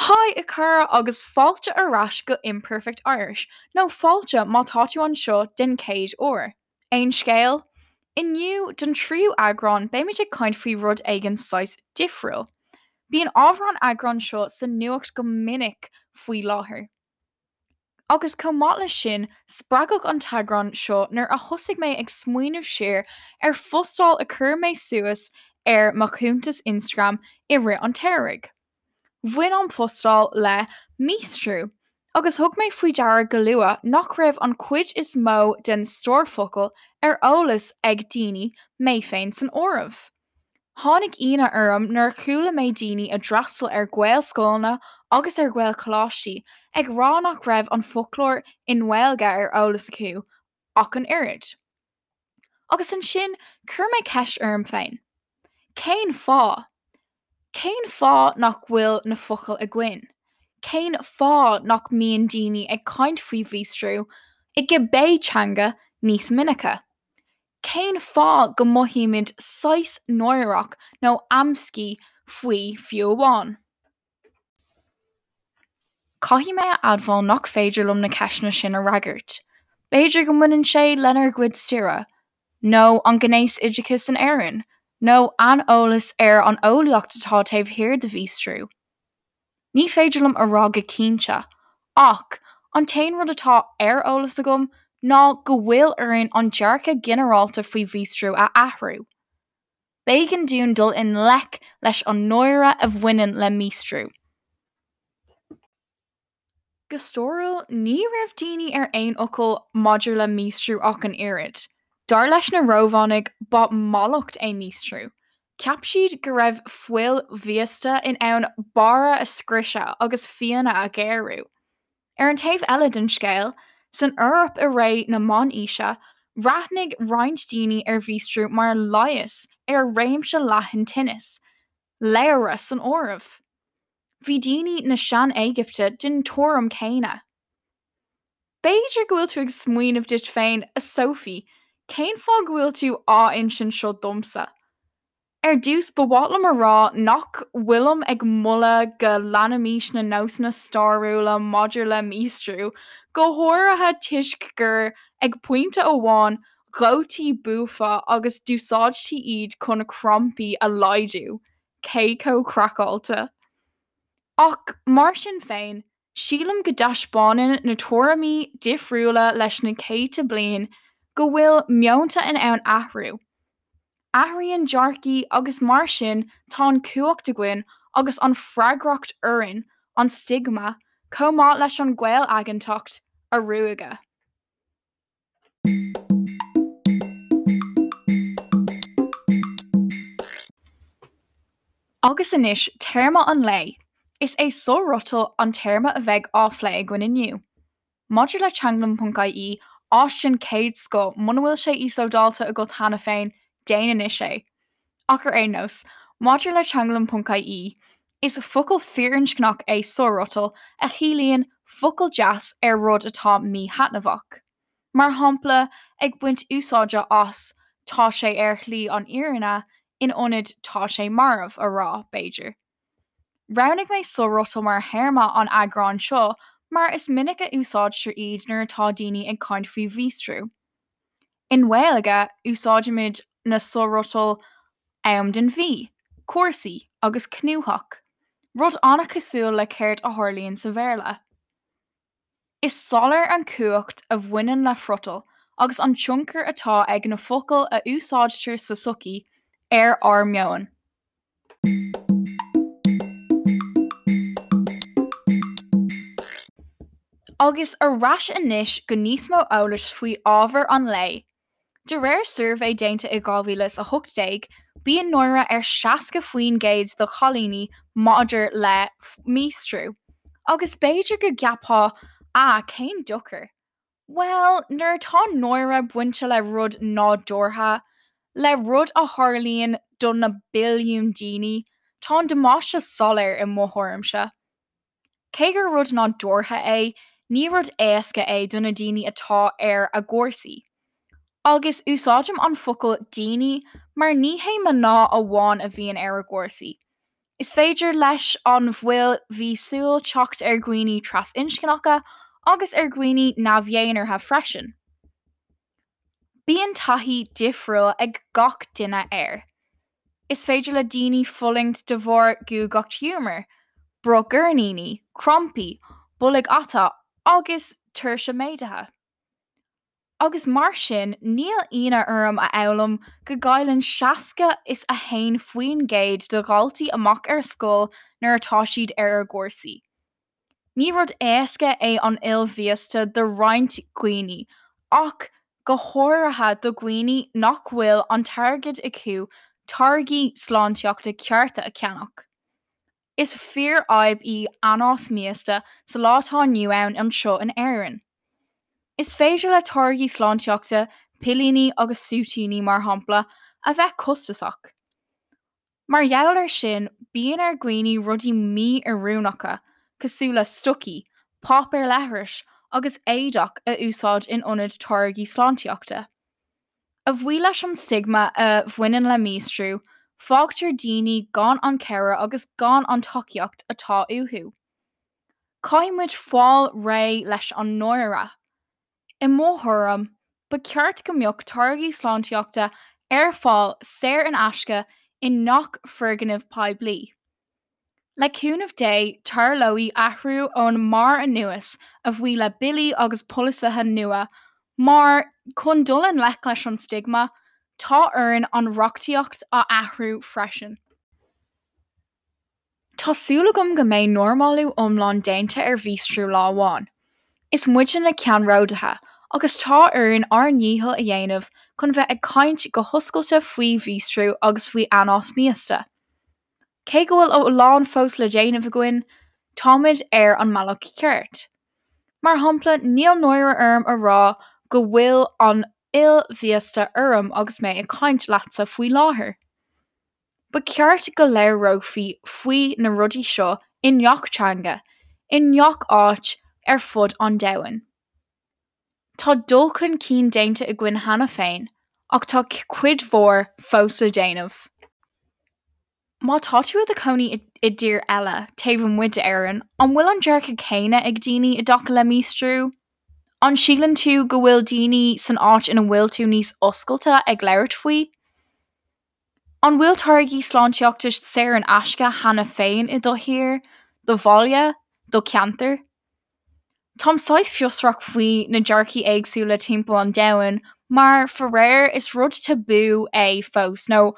Haigh a chara agus fáilte ar ais go Imperfect Irish, nó fáilte má tá tú anseo den chéad uair. Aon scéal? Inniu, don tríú eagrán, beimid ag caint faoi rud éigin saghas difriúil. Bíonn ábhar an eagráin seo sa nuacht go minic faoi láthair. Agus chomh maith leis sin, spreagadh an t-eagrán seo nuair a thosaigh mé ag smaoineamh siar ar phostáil a chuir mé suas ar mo chuntas Instagram i rith an tsamhraidh. Bhain an phostáil le míostrú, agus thug mé faoi deara go luath nach raibh an chuid is mó den stór focal ar eolas ag daoine, mé féin san áireamh. Tháinig ionadh orm nuair a chuala mé daoine a d'fhreastail ar Ghaelscoileanna agus ar Ghaelcholáistí ag rá nach raibh an foclóir i nGaeilge ar eolas acu ach an oiread. Agus ansin chuir mé ceist orm féin. Cén fáth? Cén fáth nach bhfuil na focail againn? Cén fáth nach mbíonn daoine ag caint faoi mhíostrú, i gcibé teanga, níos minice? Cén fáth go mothaímid saghas náireach nó amscaí faoi fiú amháin? Caithfidh mé a admháil nach féidir liom na ceisteanna sin a fhreagairt. B'fhéidir go mbaineann sé lenár gcuid staire, nó an gnéasoideachas in Éirinn, nó aineolas ar an eolaíocht atá taobh thiar de mhíostrú. Ní féidir liom a rá go cinnte, ach an t-aon rud atá ar eolas agam ná go bhfuil orainn an dearcadh ginearálta faoi mhíostrú a athrú. B'éigean dúinn dul i ngleic leis an náire a bhaineann le míostrú. Go stairiúil, ní raibh daoine ar aon fhocal maidir le míostrú ach an oiread. Dar leis na Rómhánaigh, ba mhallacht é míostrú. Cheap siad go raibh fuil mhíosta in ann barra a scriosadh agus fíona a ghéarú. Ar an taobh eile den scéal, san Eoraip i ré na Meánaoise, bhreathnaigh roinnt daoine ar mhíostrú mar leigheas ar réimse leathan tinneas, ladhra san áireamh. Bhí daoine na Sean-Éigipte den tuairim chéanna. B'fhéidir go bhfuil tú ag smaoineamh duit féin, 'A Sophie, cén fáth go bhfuil tú á insint seo domsa? Ar dtús, ba mhaith liom a rá nach bhfuilim ag moladh go leanfaimis na nósanna stairiúla maidir le míostrú, go háirithe toisc gur, ag pointe amháin, dhóití buafa agus d'úsáidtí iad chun crampaí a laghdú. Cé chomh craiceáilte? Ach mar sin féin, Sílim go dtaispeánann na tuairimí difriúla leis na céadta bliain go bhfuil meonta in ann athrú. Athraíonn dearcaí agus mar sin tá an chumhacht againn agus an freagracht orainn an stigma, chomh maith leis an gcaolaigeantacht, a ruaigeadh. Agus anois téarma an lae. Is é sofhriotal an téarma a bheidh á phlé againn inniu. Maidir le teanglann.ie, áis den chéad scoth, muna bhfuil sé íoslódáilte agat cheana féin, déan anois é. Ach ar aon nós, maidir le teanglann.ie, is focal firinscneach é sofhriotal a chiallaíonn focal deas ar rud atá míthaitneamhach. Mar shampla, ag baint úsáide as 'tá sé ar shlí an fhírinne' in ionad 'tá sé marbh' a rá, b'fhéidir. Roghnaigh mé sofhriotal mar théarma an eagráin seo mar is minic a úsáidtear iad nuair atá daoine ag caint faoi mhíostrú. I nGaeilge, úsáidimid na sofhriotail am den mhí, cúrsaí agus cnúthach, rud an-chosúil le céard a tharlaíonn sa Bhéarla. Is soiléir an chumhacht a bhaineann le friotal agus an tionchar atá ag na focail a úsáidtear sa tsochaí ar ár meon. Agus ar ais anois go níos mó eolais faoi ábhar an lae. De réir suirbhé déanta i 2018, bíonn náire ar 60% de chailíní maidir le míostrú. Agus b'fhéidir go gceapfá 'ah, cén dochar? Bhuel, nuair atá náire bainte le rud nádúrtha, le rud a tharlaíonn do na billiúin daoine, tá an damáiste soiléir i mo thuairimse. Cé gur rud nádúrtha é, ní rud éasca é do na daoine atá ar a gcúrsaí. Agus úsáidim an focal 'daoine' mar ní hé mná amháin a bhíonn ar a gcúrsaí. Is féidir leis an bhfuil mhíosúil teacht ar dhaoine trasinscneacha agus ar dhaoine neamh-dhénártha freisin. Bíonn taithí difriúil ag gach duine air. Is féidir le daoine fulaingt de bharr guagacht ghiúmar, bruth goirníní, crampaí, bolg ata agus tuirse méadaithe. Agus mar sin, níl ionadh orm a fhoghlaim go gcailleann 61% de dhaltaí amach ar scoil nuair atá siad ar a gcúrsaí. Ní rud éasca é an fhuil mhíosta do roinnt dhaoine, ach go háirithe do dhaoine nach bhfuil an t-airgead acu táirgí sláintíochta cearta a cheannach. Is fíorfhadhb í anás míosta sa lá atá inniu ann anseo in Éirinn. Is féidir le táirgí sláintíochta, pillíní agus súitíní mar shampla, a bheith costasach. Mar gheall air sin, bíonn ar dhaoine rudaí mí-oiriúnacha, cosúil le stocaí, páipéar leithris agus éadach a úsáid in ionad táirgí sláintíochta. A bhuí leis an stigma a bhaineann le míostrú, fágtar daoine gan an chabhair agus gan an tacaíocht atá uathu. Caithfidh muid fáil réidh leis an náire. I mo thuairim, ba cheart go mbeadh táirgí sláintíochta ar fáil saor in aisce i ngach foirgneamh poiblí. Le cúnamh Dé, tarlóidh athrú ón mbarr anuas, a bhuí le billí agus polasaithe nua, mar, chun dul i ngleic leis an stigma, tá orainn an reachtaíocht a athrú freisin. Tá súil agam go mbeidh normálú iomlán déanta ar mhíostrú lá amháin. Is muide na ceannródaithe, agus tá orainn ár ndícheall a dhéanamh chun bheith ag caint go hoscailte faoi mhíostrú agus faoi anás míosta. Cé go bhfuil a lán fós le déanamh againn, táimid ar an mbealach ceart. Mar shampla, níl náire orm a rá go bhfuil an fhuil mhíosta orm agus mé ag caint leatsa faoi láthair. Ba cheart go labhrófaí faoi na rudaí seo i ngach teanga, i ngach áit ar fud an domhain. Tá dul chun cinn déanta againn cheana féin, ach tá cuid mhór fós le déanamh. Má tá tú i do chónaí i dtír eile, taobh amuigh d'Éirinn, an bhfuil an dearcadh céanna ag daoine i dtaca le míostrú? An síleann tú go bhfuil daoine san áit ina bhfuil tú níos oscailte ag labhairt faoi? An bhfuil táirgí sláintíochta saor in aisce cheana féin i do thír, do bhaile, do cheantar? Táim saghas fiosrach faoi na dearcaí éagsúla timpeall an domhain mar, faraor, is rud tabú é fós, nó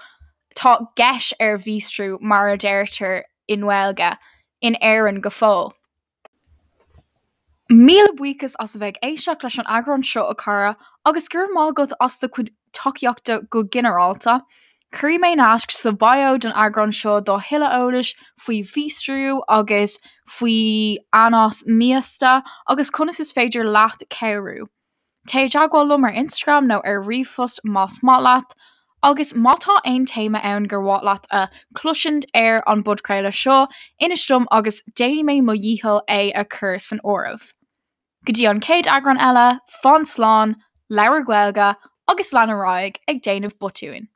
tá geis ar mhíostrú mar a deirtear i nGaeilge, in Éirinn go fóill. Míle buíochas as a bheith ag éisteacht leis an eagrán seo, a chara, agus go raibh maith agat as do chuid tacaíochta go ginearálta. Cuirfidh mé naisc sa bio don eagrán seo do thuilleadh eolais faoi mhíostrú agus faoi anás míosta agus conas is féidir leat cabhrú. Téigh i dteagmháil liom ar Instagram nó ar ríomhphost más maith leat, agus má tá aon téama ann gur mhaith leat a chloisint ar an bpodchraoladh seo, inis dom agus déanfaidh mé mo dhícheall é a chur san áireamh. Go dtí an chéad eagrán eile, fan slán, labhair Gaeilge, agus lean ar aghaidh ag déanamh botúin.